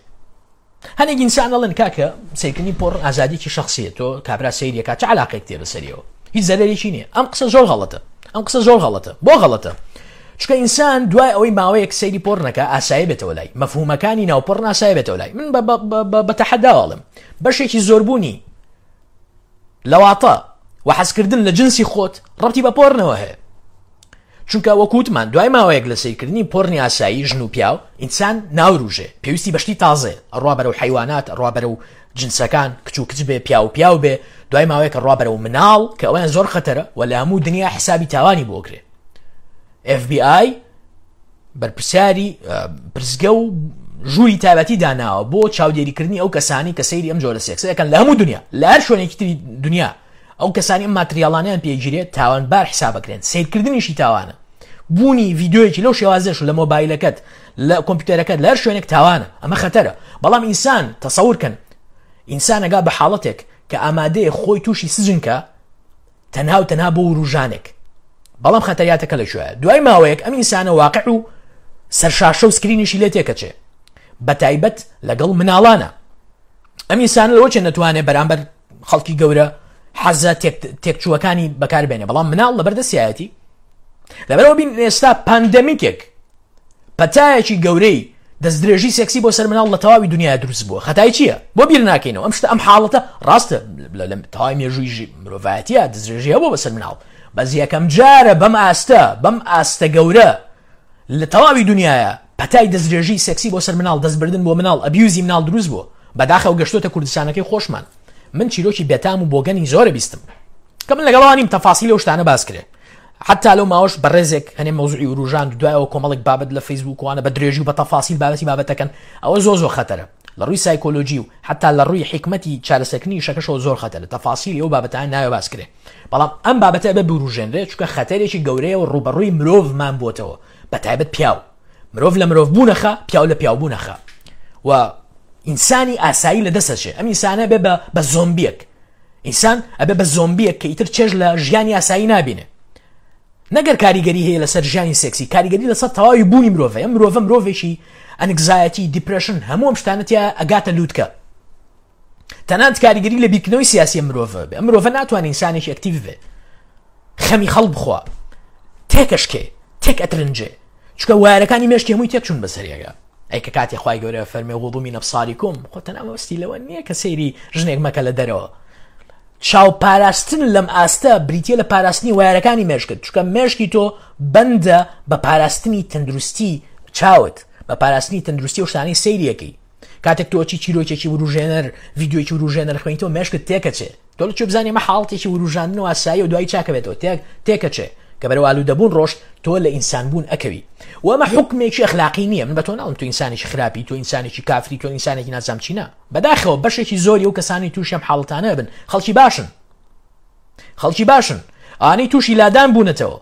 هەنێک ئینسان ئەڵێن کاکە سەیرکردنی پۆڕن ئازادیکی شخصیە تۆ کابرا سەیریەکە چ علاقێک تێ بەسەریەوە هیچ زەرەرێکی نییە ئەم قسە زۆر غەڵەتە ئەم قسە زۆر غەڵەتە بۆ غەڵەتە چونکە ئینسان دوای ئەوەی ماوەیەک سەیری پۆڕنەکە ئاسایی بێتەوە لای مەفهومەکانی ناو پۆڕن ئاسایی بێتەوە لای من بە تەحەداوەڵم بەشێکی زۆربوونی لەواتە و حەزکردن لە جنسی خۆت ڕەبتی بە پۆرنەوە هەیە چونکە وەکوتمان دوای ماوەیەک لە سەیرکردنی پۆرنی ئاسایی ژن و پیاو ئینسان ناوروژێ پێویستی بەشتی تازێ ئەڕوا بەرەو حیوانات ئەڕوا بەرەو جنسەکان کچ و کچ بێ پیاو پیاو بێ دوای ماوەیەکە ڕوا بەرەو مناڵ کە ئەویان زۆر خەتەرە و لە هەموو دنیا حسابی تاوانی بۆکرێ FBI بەرپرسیاری پرسگە و ژووری تایبەتی داناوە بۆ چاودێریکردنی ئەو کەسانی کە سەیری ئەم جۆرە سێکسە دەکەن لە هەموو دنیا لە هەر شوێنێکی تری دنیا ئەو کەسانی ئەم ماتریاڵانیان پێگیرێت تاوانبار حسابەکرێن سیرکردنیشی تاوانە بوونی ڤیددیویەکی لەو شێوازەش لە مۆبایلەکەت لە کۆمپیوتەرەکەت لە هەر شوێنێک تاوانە ئەمە خەتەرە بەڵام ئینسان تەسەور کەن ئینسانەگا بە حاڵەتێک کە ئامادەیە خۆی تووشی سجنکە تەنها و تەنها بۆ وروژانێک بەڵام خەتەریاتەکە لە کوێیە دوای ماوەیەک ئەم ئینسانە واقع و سەرشاشە و سکرینیشی لێ تێکەچێ بە تایبەت لەگەڵ مناڵانە ئەم ئینسانە لەوە چێ نەتوانێ بەرامبەر خەڵکی گەورە حەزە تێکچووەکانی بەکاربێنێ بەڵام مناڵ لەبەر دەستیایەتی لەبەرەوە بین ئێستا pandemic ێک پەتایەکی گەورەی دەستدرێژی سێکسی بۆ سەر مناڵ لە تەواوی دنیا دروست بووە خەتای چییە بۆ بیر ناکەینەوە ئەم شتە ئەم حاڵەتە ڕاستە لە تەواوی مێژووی مرۆڤایەتیە دەستدرێژی هەبوو بەسەر مناڵ بەس یەکەم جارە بەم ئاستە بەم ئاستە گەورە لە تەواوی دنیاە پەتای دەستدرێژی سێکسی بۆ سەر مناڵ دەستبردن بۆ مناڵ abuse ی مناڵ دروست بووە بەداخەوە گەشتۆتە کوردستانەکەی خۆشمان من چیرۆکی بێتام و بۆگەنی زۆرە بیستم کە من لەگەڵوانیم تەفاسیل ئەو شتانە باس کرێ حتا لەو ماوەش بەڕێزێک هەنێ مەوزوعی وروژاند دوایەوە کۆمەڵێک بابەت لە فەیسبوک وانە بە درێژی و بە تەفاسیل بابەتی بابەتەکەن ئەوە زۆر زۆر خەتەرە لە ڕووی سایکۆلۆژی و حتا لە ڕووی حیکمەتی چارەسەرکردنی ئیشەکەشەوە زۆر خەتەرە تەفاسیلی ئەو بابەتانە ناوێ باس کرێ بەڵام ئەم بابەتە ئەبێ بوروژێنرێ چونکە خەتەرێکی گەورەیە و ڕووبەڕووی مرۆڤمان بۆتەوە بە تایبەت پیاو مرۆڤ لە مرۆڤ بوونەخە پیاو لە پیاو بوونەخە و ئینسانی ئاسایی لە دەست ئەچێ ئەم ئینسانە بێ بە زۆمبیەک ئینسان ئەبێ بە زۆمبیەک کە ئیتر چێژ لە ژیانی ئاسایی نابینێ نەگەر کاریگەری هەیە لەسەر ژیانی سێکسی کاریگەری لەسەر تەواوی بوونی مرۆڤ ئەم مرۆڤە مرۆڤێکی anxiety depression هەموو ئەم شتانە تیا ئەگاتە لووتکە تەنانەت کاریگەری لە بیرکردنەوەی سیاسی مرۆڤ بێ ئەم مرۆڤە ناتوانێت ئینسانێکی active بێ خەمی خەڵک بخوا تێکەشکێ تێک ئەترنجێ چونکە وایەرەکانی مێشکی هەمووی تێک چوون بەسەریەکە ئەی کە کاتی خوای گەورە فەرمێ غضوا من ابصاركم خۆ تەنها مەبەستی لەوە نییە کە سەیری ژنێک مەکە لە دەرەوە. چاو پاراستن لەم ئاستە بریتیە لە پاراستنی وایەرەکانی مێشکت چونکە مێشکی تۆ بەندە بە پاراستنی تەندروستی چاوت بە پاراستنی تەندروستی و شتانەی سەیریەکەی کاتێک تۆ چی چیرۆکێکی وروژێنەر ڤیدیۆیەکی وروژێنەر خوێنیتەوە مێشکت تێکەچێ تۆ لە کوێ بزانی ئەمە حاڵەتێکی وروژاندن و ئاسایی و دوایی چاکەبێتەوە تێک تێکەچێ کە بەرەو ئالوودەبوون ڕۆشت تۆ لە ئینسانبوون ئەکەوی و ئەمە حوکمێکی ئەخلاقی نییە من بە تۆ ناڵم تۆ ئینسانێکی خراپی تۆ ئینسانێکی کافری تۆ ئینسانێکی نازام چی نا بەداخەوە بەشێکی زۆری ئەو کەسانی تووشی ئەم حاڵەتانە بن خەڵکی باشن خەڵکی باشن ئانی تووشی لادان بوونەتەوە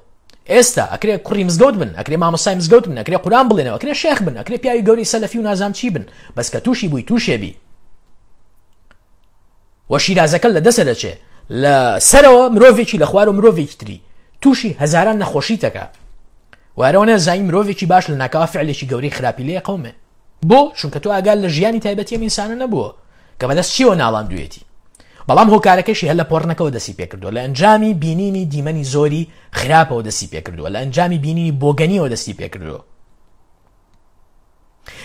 ئێستا ئەکرێ کوڕی مزگەوت بن ئەکرێ مامۆستای مزگەوت بن ئەکرێ قوران بڵێنەوە ئەکرێ شێخ بن ئەکرێ پیاوی گەورەی سەلەفی و نازام چی بن بەس کە تووشی بووی تووشێ بی و شیرازەکە لە دەسە دەچێ لە سەرەوە مرۆڤێکی لە خوارەوە مرۆڤێکی تری تووشی هەزاران نەخۆشی تەکە وارەوە نەزانی مرۆڤێکی باش لە ناکاوە فعلێکی گەورەی خراپی لێ قومێ بۆ؟ چونکە تۆ ئاگات لە ژیانی تایبەتی ئەم ئینسانە نەبووە کە بەدەست چیەوە ناڵاندوویەتی. بەڵام هۆکارەکەشی هەر لە پۆڕنەکەوە دەستی پێکردووە، لە ئەنجامی بینینی دیمەنی زۆری خراپەوە دەستی پێکردووە، لە ئەنجامی بینینی بۆگەنیەوە دەستی پێکردووە.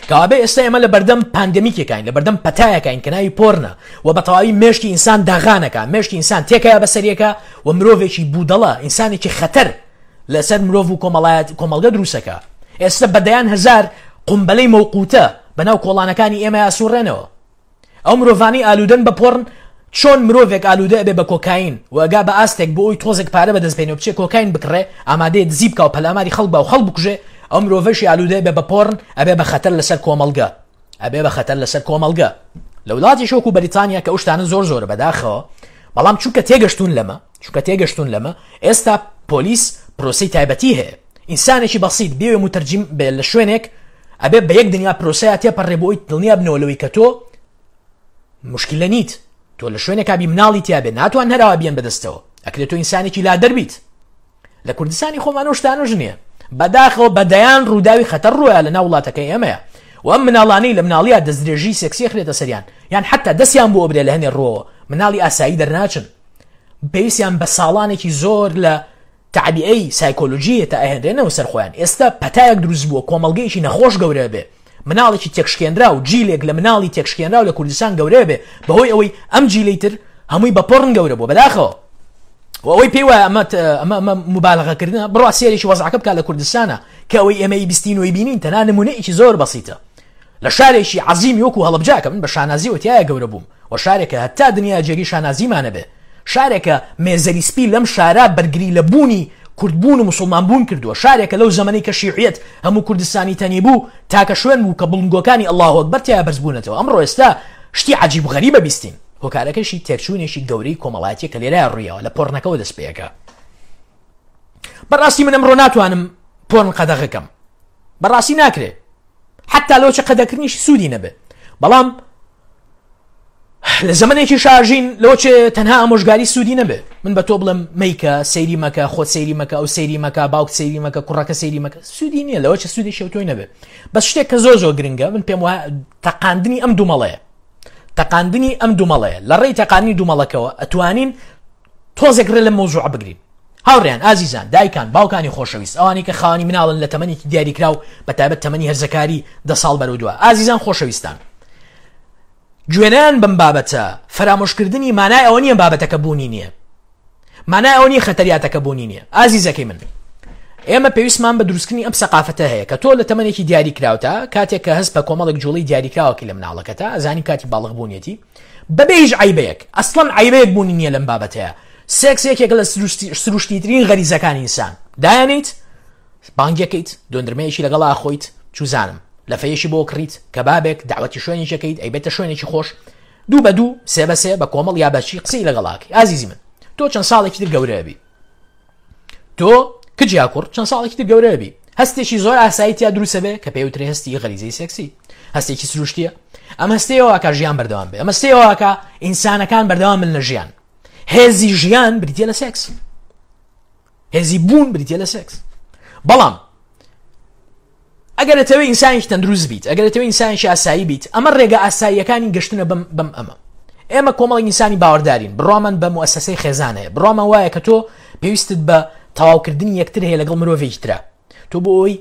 کەوابێ ئێستا ئێمە لە بەردەم پاندەمیکێکین لە بەردەم پەتایەکین کە ناوی پۆرنە و بە تەواوی مێشکی ئینسان داغانەکە مێشکی ئینسان تێکەیە بەسەریەکە و مرۆڤێکی بودەڵە ئینسانێکی خەتەر لەسەر مرۆڤ و کۆمەڵایەت کۆمەڵگە دروستەکا ئێستا بە دەیان هەزار قومبەلەی مەوقوتە بەناو کۆڵانەکانی ئێمە ئاسوڕێنەوە ئەو مرۆڤانی ئالوودەن بە پۆڕن چۆن مرۆڤێک ئالوودە ئەبێ بە کۆکاین و ئەگا بە ئاستێک بۆ ئەوی تۆزێک پارە بەدەست بێنێ و بچێ کۆکاین بکڕێ ئامادەیە دزی بکا و پەلاماری خەڵک با و خەڵک بکوژێ ئەو مرۆڤەشی ئالوودە ئەبێ بە پۆڕن ئەبێ بە خەتەر لەسەر کۆمەڵگە ئەبێ بە خەتەر لەسەر کۆمەڵگە لە وڵاتێکی وەکو بەریتانیا کە ئەو شتانە زۆر زۆرە بەداخەوە بەڵام چونکە تێگەشتون لەمە چونکە تێگەشتون لەمە ئێستا پۆلیس پرۆسەی تایبەتی هەیە ئینسانێکی بەسیت بێوێ متەرجیم بێ لە شوێنێک ئەبێ بە یەک دنیا پرۆسەیە تێپەڕێ بۆ ئەوی دڵنیا بنەوە لەوەی کە تۆ مشکلە نیت تۆ لە شوێنێکا بی مناڵی تیاابێ ناتوان هەراوە بیان بەدەستەوە ئەکرێت تۆ ئینسانێکی لادەر بیت لە کوردستانی خۆمان ئەو شتانەش نییە بەداخەوە بە دەیان ڕووداوی خەتەر ڕووە لە ناو وڵاتەکەی ئێمەیە و ئەم مناڵانەی لە مناڵییا دەستدرێژی سێکسی خرێتە سەریان یان حتا دەستیان بۆ ئەبرێ لە هەنێ ڕووەوە مناڵی ئاسایی دەرناچن پێویستیان بە ساڵانێکی زۆر لە تەعبیئەی سایکۆلۆژییە تا ئەهێنرێنەوە سەر خۆیان ئێستا پەتایەک دروست بووە کۆمەڵگەیەکی نەخۆش گەورە بێ مناڵێکی تێکشکێنراو جیلێک لە مناڵی تێکشکێنراو لە کوردستان گەورە بێ بەهۆی ئەوەی ئەم جیلەی تر هەمووی بە پۆڕن گەورە بووە بەداخەوە و ئەوەی پێی وایە ئەمە ئەمە ئەمە مبالغەکردنە بڕوا سێرێکی وەزعەکە بکات لە کوردستانە کە ئەوەی ئێمە بیستین و بینین تەنها نمونەیەکی زۆر بەسیتە لە شارێکی عەزیمی وەکو هەڵەبجە کە من بە شانازیەوە تیایا گەورە بووم و شارێکە هەتا دنیا جێگەی شانازیمانە بێ شارێکە مێزەری سپی لەم شارە بەرگری لە بوونی کوردبوون و مسوڵمان بوون کردووە شارێکە لەو زەمەنەی کە شیعیەت هەموو کوردستانی تەنی بوو تاکە شوێن بوو کە بڵندگۆکانی اللە اکبر تیایا بەرز بوونەتەوە ئەمڕۆ ئێستا شتی عەجیب و غەریبە بیستین هۆکارەکەشی تێکچوونێکی گەورەی کۆمەڵایەتیە کە لێرە ڕوویەوە لە پۆڕنەکەوە دەست پێەکە بەڕاستی من ئەمڕۆ ناتوانم پۆرن قەدەغەکەم بەڕاستی ناکرێ حتا لەوچە قەدەکردنیشی سوودی نەبێ بەڵام لە زەمنێکی شاژین لەوچێ تەنها ئامۆژگاری سوودی نەبێ من بە تۆ بڵم میکە سەیری مەکە خۆت سەیری مەکە ئەو سەیری مەکە باوک سەیری مەکە کوڕەکە سەیری مەکە سوودی نییە لەوە چە سوودی شەوتۆی نەبێ بەس شتێک کە زۆر زۆر گرنگە من پێم وایە تەقاندنی ئەم دومەڵەیە تەقاندنی ئەم دومەڵەیە لە ڕێی تەقاندنی دومەڵەکەوە ئەتوانین تۆزێک ڕێ لەم مەوزوعە بگرین. هاوڕێیان، ئازیزان، دایکان، باوکانی خۆشەویست، ئەوانەی کە خاوەنی مناڵن لە تەمەنێکی دیاریکراو بە تایبەت تەمەنی هەرزەکاری دە ساڵ بەرەو دوا، ئازیزان خۆشەویستان، گوێنەیان بەم بابەتە، فەرامۆشکردنی مانای ئەوە نییە بابەتەکە بوونی نییە. مانای ئەوە نییە خەتەریاتەکە بوونی نییە. ئازیزەکەی من، ئێمە پێویستمان بە دروستکردنی ئەم سەقافەتە هەیە کە تۆ لە تەمەنێکی دیاریکراوتا کاتێک کە هەست بە کۆمەڵێک جوڵەی دیاریکراوەکەی لە مناڵەکەتا ئەزانی کاتی باڵغبوونیەتی بەبێ هیچ عەیبەیەک، ئەسڵەن عەیبەیەک بوونی نییە لەم بابەتەیا، سێکس یەکێکە لە سروشتیترین غەریزەکانی ئینسان، دایەنێیت، بانگیەکەیت، دۆندرمەیەکی لەگەڵا ئەخۆیت، چوزانم، لەفەیەکی بۆ کڕیت، کەبابێک، دەعوەتی شوێنێکی ئەکەیت، ئەیبەیتە شوێنێکی خۆش، دوو بە دوو، سێ بە سێ، بە کۆمەڵ یا بە چی قسەی لەگەڵا ئەکەی، ئازیزی من، تۆ چەند ساڵێکی تر گەورە ئەبی. تۆ کچ یا کوڕ چەند ساڵێکی تر گەورە بی هەستێکی زۆر ئاسایی تیا دروستە بێ کە پێوترێ هەستی غەریزەی سێکسی هەستێکی سروشتیە ئەم هەستەیەوە کە ژیان بەردەوام بێ ئەمە سێوەکە ئینسانەکان بەردەوام من لە ژیان هێزی ژیان بریتە لە سێکس هێزی بوون بریتە لە سێکس بەڵام ئەگەر ئەتەوێ ئینسانێکی تەندروست بیت، ئەگەر ئەتەوێ ئینسانێکی ئاسایی بیت، ئەمە ڕێگە ئاساییەکانی گەشتنە بەم بەم ئەمە. ئێمە کۆمەڵێک ئینسانی باوەڕدارین، بڕوامان بە موئەسەسەی خێزان هەیە، بڕوامان وایە کە تۆ پێویستت بە تەواوکردنی یەکتر هەیە لەگەڵ مرۆڤێکی ترا. تۆ بۆ ئەوەی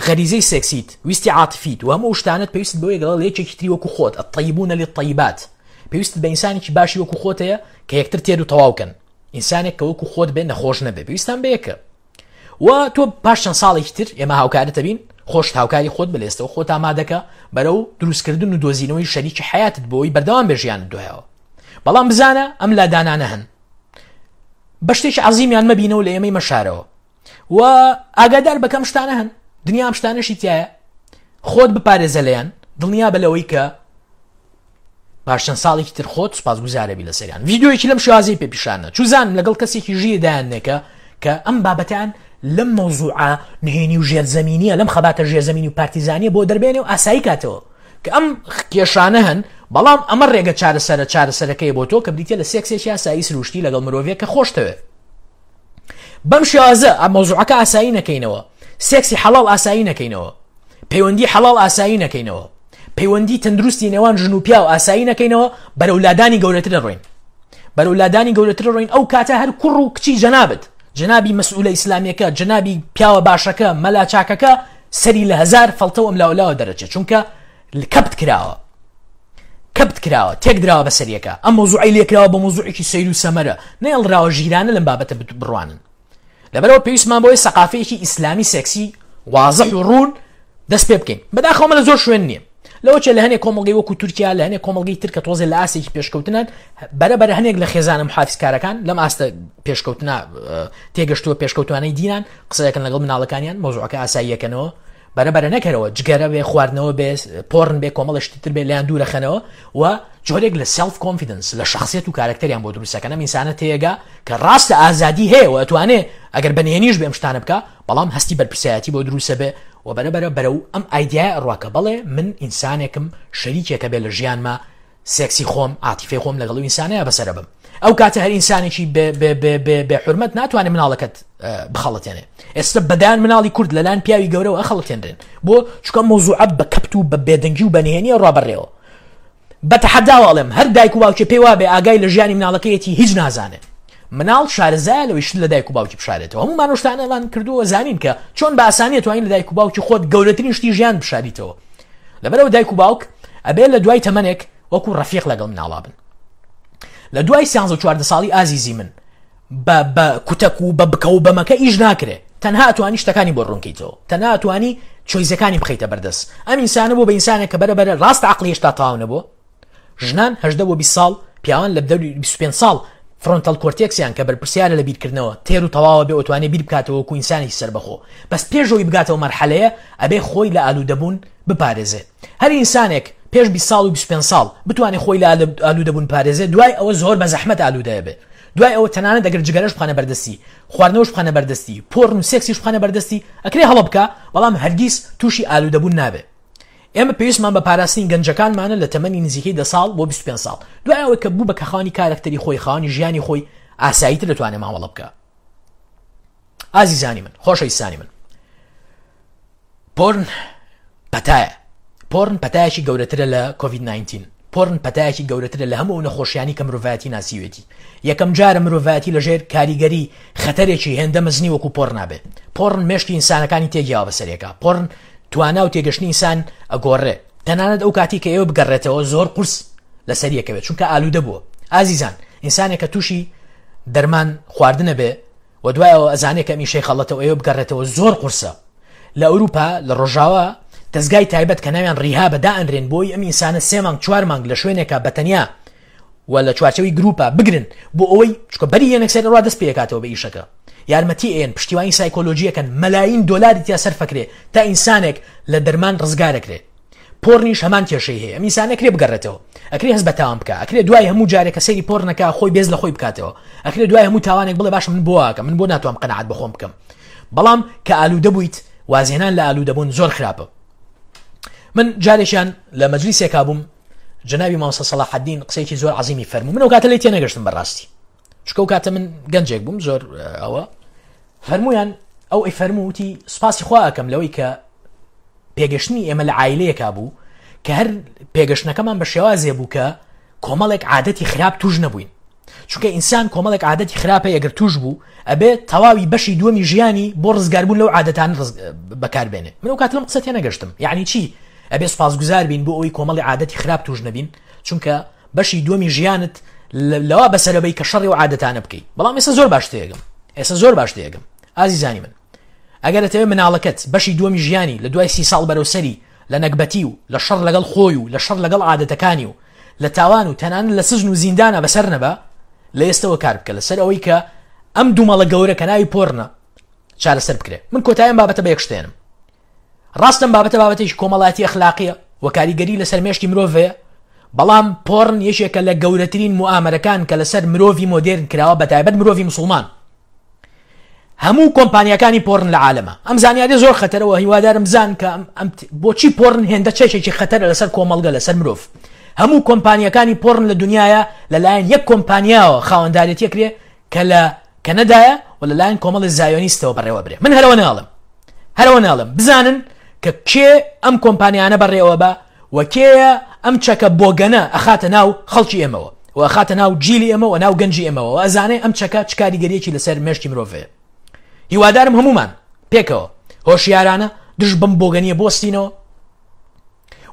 غەریزەی سێکسیت، ویستی عاتفیت و هەموو ئەو شتانەت پێویستت بەوەیە لەگەڵ یەکێکی تری وەکو خۆت، الطیبون للطیبات. پێویستت بە ئینسانێکی باشی وەکو خۆت هەیە کە یەکتر تێر و تەواو کەن ئینسانێک کە وەکو خۆت بێ نەخۆش نەبێ پێویستان بە یەکە و تۆ پاش چەند ساڵێکی تر ئێمە هاوکارتە بین خۆشت هاوکاری خۆت بلێستەوە خۆت ئامادەکە بەرەو دروستکردن و دۆزینەوەی شەریکی حیاتت بۆی بەردەوام بێ ژیانت دوایەوە بەڵام بزانە ئەم لادانانە هەن بە شتێکی عەزیمیان مەبینەوە لە ئێمەی مەشارەوە و ئاگادار بەکەم شتانە هەن دنیا ئەم شتانەشی تایە خۆت بپارێزە لێیان دڵنیا بە لەوەی کە پاش چەند ساڵێکی تر خۆت سوپاسگوزارەبی لەسەریان ڤیدیۆیەکی لەم شێوازەی پێ پیشانە چوزانم لەگەڵ کەسێکی ژیر دایاننێکە کە ئەم بابەتیان لەم مەوزوعە نهێنی و ژێرزەمینیە لەم خەباتە ژێرزەمینی و پارتیزانیە بۆ دەربێنێ و ئاسایی کاتەوە کە ئەم کێشانە هەن بەڵام ئەمە ڕێگە چارەسەرە چارەسەرەکەی بۆ تۆ کە بریتە لە سێکسێکی ئاسایی سروشتی لەگەڵ مرۆڤێک کە خۆشتەوێت بەم شێوازە ئەم مەوزوعەکە ئاسایی نەکەینەوە سێکسی حەڵاڵ ئاسایی نەکەینەوە پەیوەندی حەڵاڵ ئاسایی نەکەینەوە پەیوەندی تەندروستی نێوان ژن و پیاو ئاسایی نەکەینەوە بەرەو لادانی گەورەتر دەڕۆین بەرەو لادانی گەورەتر ڕۆین ئەو کاتە هەر کوڕ و کچی جەنابت جەنابی مەسئولە ئیسلامیەکە جەنابی پیاوە باشەکە مەلا چاکەکە سەری لە هەزار فەڵتەوە ئەم لاولاوە دەرەچێت چونکە کەپت کراوە کەپت کراوە تێک دراوە بەسەریەکە ئەم مەوزوعی لێکراوە بە مەوزوعێکی سەیر و سەمەرە نەیەڵراوە ژیرانە لەم بابەتە بڕوانن لەبەرەوە پێویستمان بۆی سەقافەیەکی ئیسلامی سێکسی وازح و ڕوون دەست پێ بکەین بەداخەوە لە زۆر شوێن نییە لەوە چێ لە هەنێک کۆمەڵگەی وەکو تورکیا لە هەنێک کۆمەڵگەی تر کە تۆزێ لە ئاستێکی پێشکەوتنن بەرە بەرە هەنێک لە خێزانە محافزکارەکان لەم ئاستە پێشکەوتنا تێگەشتووە پێشکەوتوانەی دینان قسەیەکەن لەگەڵ مناڵەکانیان مەوزوعەکە ئاساییەکەنەوە بەرە بەرە نەکەرەوە جگەرە بێ خواردنەوە بێ پۆرن بێ کۆمەڵە شتی تر بێ لێیان دوورەخەنەوە و جۆرێک لە self confidence لە شخصیت و کارکتەریان بۆ دروستەکەن ئەم ئینسانە تێگا کە ڕاستە ئازادی هەیە و ئەتوانێ ئەگەر بەنهێنیش بێم شتانە بکە بەڵام هەستی بەرپرسایەتی بۆ دروستە بێ و بەرە بەرە بەرەو ئەم ئایدیای ئەڕوا کە بەڵێ من ئینسانێکم شەریکێکە بێ لە ژیانما سێکسی خۆم عاتیفەی خۆم لەگەڵ ئەو ئینسانەیە بەسەرە بم ئەو کاتە هەر ئینسانێکی بێ حرمەت ناتوانێت مناڵەکەت بخەڵەتێنێ ئێستا بەدان مناڵی کورد لەلایەن پیاوی گەورەوە ئەخەڵەتێنرێن بۆ چکە مۆزوعە بە کەپت و بە بێدەنگی و بەنهێنی ڕابەڕێەوە بە تەحەداوە ئەڵێم هەر دایک و باوکێ پێی وابێ ئاگای لە ژیانی مناڵەکەیەتی هیچ نازانێ مناڵ شارەزایە لەوەی شت لە دایک و باوکی بشارێتەوە هەموومان ئەو شتانەمان کردووە زانین کە چۆن بە ئاسانی توانین لە دایک و باوکی خۆت گەورەترین شتی ژیان بشاریتەوە لەبەرەوە دایک و باوک ئەبێ لە دوای تەمەنێک وەکو ڕەفیق لەگەڵ مناڵا بن لە دوای سیانزە و 14 ساڵی ئازیزی من بە بە کوتەک و بە بکە و بەمەکە ئیش ناکرێ تەنها ئەتوانی شتەکانی بۆ ڕوونکەیتەوە تەنها ئەتوانی چۆیزەکانی بخەیتە بەردەست ئەم ئینسانە بۆ بە ئینسانێک کە بەرە بەرە ڕاست عقلی هێشتا تەواو نەبووە ژنان هەژدە بۆ 20 ساڵ پیاوان لە دەوری 25 ساڵ frontal cortex یان کە بەرپرسیارە لە بیرکردنەوە تێر و تەواوە بێ ئەتوانێ بیر بکاتەوە وەکو ئینسانێکی سەربەخۆ بەس پێش ئەوەی بگاتەوە مەرحەلەیە ئەبێ خۆی لە ئالوودەبوون بپارێزێ هەر ئینسانێک پێش 20 ساڵ و 25 ساڵ بتوانێ خۆی لە ئالوودەبوون پارێزێ دوای ئەوە زۆر بە زەحمەت ئالوودەیە بێ دوای ئەوە تەنانەت ئەگەر جگەرەش بخەنە بەردەستی، خواردنەوەش بخەنە بەردەستی، پۆرن و سێکسیش بخەنە بەردەستی، ئەکرێ هەڵە بکا، بەڵام هەرگیز تووشی ئالوودەبوون نابێ. ئێمە پێویستمان بە پاراستنی گەنجەکانمانە لە تەمەنی نزیکەی دە ساڵ بۆ 25 ساڵ. دوای ئەوەی کە بوو بە کە خاوەنی کارەکتەری خۆی، خاوەنی ژیانی خۆی، ئاساییتر دەتوانێ مامەڵە بکا. ئازیزانی من، خۆشەویستانی من. پۆرن پەتایە. پۆرن پەتایەکی گەورەترە لە کۆڤید 19. پۆرن پەتایەکی گەورەترە لە هەموو ئەو نەخۆشیانی کە مرۆڤایەتی ناسیوێتی. یەکەم جارە مرۆڤایەتی لەژێر کاریگەری خەتەرێکی هێندە مەزنی وەکو پۆرن نابێ. پۆرن مێشکی ئینسانەکانی تێگیاوە بەسەرێکا. پۆرن توانا و تێگەشتنی ئینسان ئەگۆڕێ. تەنانەت ئەو کاتی کە ئێوە بگەڕێتەوە زۆر قورس لەسەر یەکەوێت چونکە ئالوودە بووە. ئازیزان ئینسانێک کە تووشی دەرمان خواردنە بێ و دوای ئەوە ئەزانێ کە ئەم ئیشەی خەڵەتە و ئەوێ بگەڕێتەوە زۆر قورسە لە ئەوروپا لە ڕۆژاوا دەزگای تایبەت کە ناویان ڕیهابە دائەنرێن بۆی ئەم ئینسانە سێ مانگ چوار مانگ لە شوێنێکا بە تەنیا و لە چوارچەوەی گروپا بگرن بۆ ئەوەی چکە بەری یەنەکسەر ڕوا دەست پێکاتەوە بە ئیشەکە یارمەتی ئێن پشتیوانی سایکۆلۆژیەکەن مەلاین دۆلاری تیا سەرفەکرێ تا ئینسانێک لە دەرمان ڕزگارەکرێ پۆرنیش هەمان کێشەی هەیە ئەم ئینسانە ئەکرێ بگەڕێتەوە ئەکرێ هەست بە تاوان بکا ئەکرێ دوای هەموو جارێک کە سەیری پۆرنەکە خۆی بێز لە خۆی بکاتەوە ئەکرێ دوای هەموو تاوانێک بڵێ باشە من بۆ ئاکەم من بۆ ناتوانم قەناعەت بە خۆم بکەم بەڵام کە ئالوودە بوویت وازهێنان لە ئالوودەبوون زۆر خراپە من جارێکیان لە مەجلیسێکا بووم جەنابی مامۆستا سەڵاحەدین قسەیەکی زۆر عەزیمی فەرموو من ئەو کاتە لێی تێنەگەشتم بەڕاستی چونکە ئەو کاتە من گەنجێک بووم زۆر ئەوە فەرموویان ئەو ئەی فەرموو وتی سوپاسی خوا ئەکەم لەوەی کە پێگەشتنی ئێمە لە عایلەیەکا بوو کە هەر پێگەشتنەکەمان بە شێوازێ بوو کە کۆمەڵێک عادەتی خراپ توش نەبووین چونکە ئینسان کۆمەڵێک عادەتی خراپە ئەگەر توش بوو ئەبێ تەواوی بەشی دووەمی ژیانی بۆ ڕزگاربوون لەو عادەتان بەکاربێنێ من ئەو کات لەم قسە تێنەگەشتم یعنی چی ئەبێ سوپاسگوزار بین بۆ ئەوەی کۆمەڵی عادەتی خراپ توش نەبین چونکە بەشی دووەمی ژیانت لەوە بەسەرەبەی کە شەڕی و عادەتانە بکەی بەڵام ئێستا زۆر باش تێگەم ئێستا زۆر باش تێگەم ئازیزانی من ئەگەر ئەتەوێ مناڵەکەت بەشی دووەمی ژیانی لە دوای سی ساڵ بەرەو سەری لە نەگبەتی و لە شەڕ لەگەڵ خۆی و لە شەڕ لەگەڵ عادەتەکانی و لە تاوان و تەنانەت لە سجن و زیندانە بەسەر نەبا لە ئێستەوە کار بکە لەسەر ئەوەی کە ئەم دوومەڵە گەورە کە ناوی پۆرنە چارەسەر بکرێ من کۆتاییم بابەتە بە یەک شتێنم ڕاستم بابەتە بابەتێکی کۆمەڵایەتی ئەخلاقیە و کاریگەری لەسەر مێشکی مرۆڤ هەیە بەڵام پۆرن یەکێکە لە گەورەترین موئامەرەکان کە لەسەر مرۆڤی مۆدێرن کراوە بەتایبەت مرۆڤی مسوڵمان هەموو کۆمپانیاکانی پۆرن لە عالەمە ئەم زانیاریە زۆر خەتەرەوە هیوادارم بزان کە ئەم بۆچی پۆرن هێندە چێکێکی خەتەرە لەسەر کۆمەڵگە لەسەر مرۆڤ هەموو کۆمپانیەکانی پۆرن لە دنیاە لەلایەن یەک کۆمپانیاوە خاوەندارێتیە کرێ کە لە کەنەدایە و لەلایەن کۆمەڵی زایۆنیستەوە بەڕێوە برێ من هەرەوە ناڵم هەرەوە ناڵم بزانن کە کێ ئەم کۆمپانیانە بەڕێوە بە و کێیە ئەم چەکە بۆگەنە ئەخاتە ناو خەڵکی ئێمەوە و ئەخاتە ناو جیلی ئێمە و ناو گەنجی ئێمەوە و ئەزانێ ئەم چەکە چ کاریگەریەکی لەسەر مێشکی مرۆڤ هەیە هیوادارم هەمومان پێکەوە هۆشیارانە دژ بەم بۆگەنیە بوەستینەوە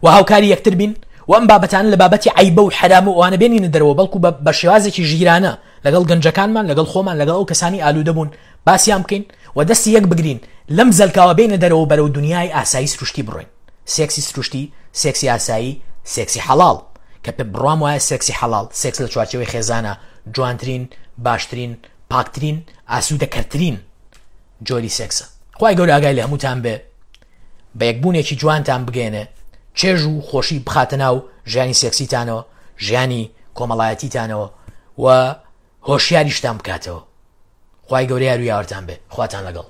و هاوکاری یەکتر بین و ئەم بابەتانە لە بابەتی عیبە و حرام و ئەوانە بێنینە دەرەوە بەڵکو بە شێوازێکی ژیرانە لەگەڵ گەنجەکانمان لەگەڵ خۆمان لەگەڵ ئەو کەسانی ئالوودە بوون باسیان بکەین و دەستی یەک بگرین لەم زەلکاوە بینە دەرەوە بەرەو دنیای ئاسایی سروشتی بڕۆین سێکسی سروشتی، سێکسی ئاسایی، سێکسی حەڵاڵ، کە پێ بڕوام وایە سێکسی حەڵاڵ، سێکس لە چوارچێوەی خێزانە جوانترین، باشترین، پاکترین، ئاسوودەکەرترین جۆری سێکسە. خوای گەورە ئاگای لە هەمووتان بێ، بە یەکبوونێکی جوانتان بگەیەنێ، چێژ و خۆشی بخاتە ناو ژیانی سێکسیتانەوە، ژیانی کۆمەڵایەتیتانەوە و هۆشیاریشتان بکاتەوە. خوای گەورە یار و یاوەرتان بێ. خواتان لەگەڵ.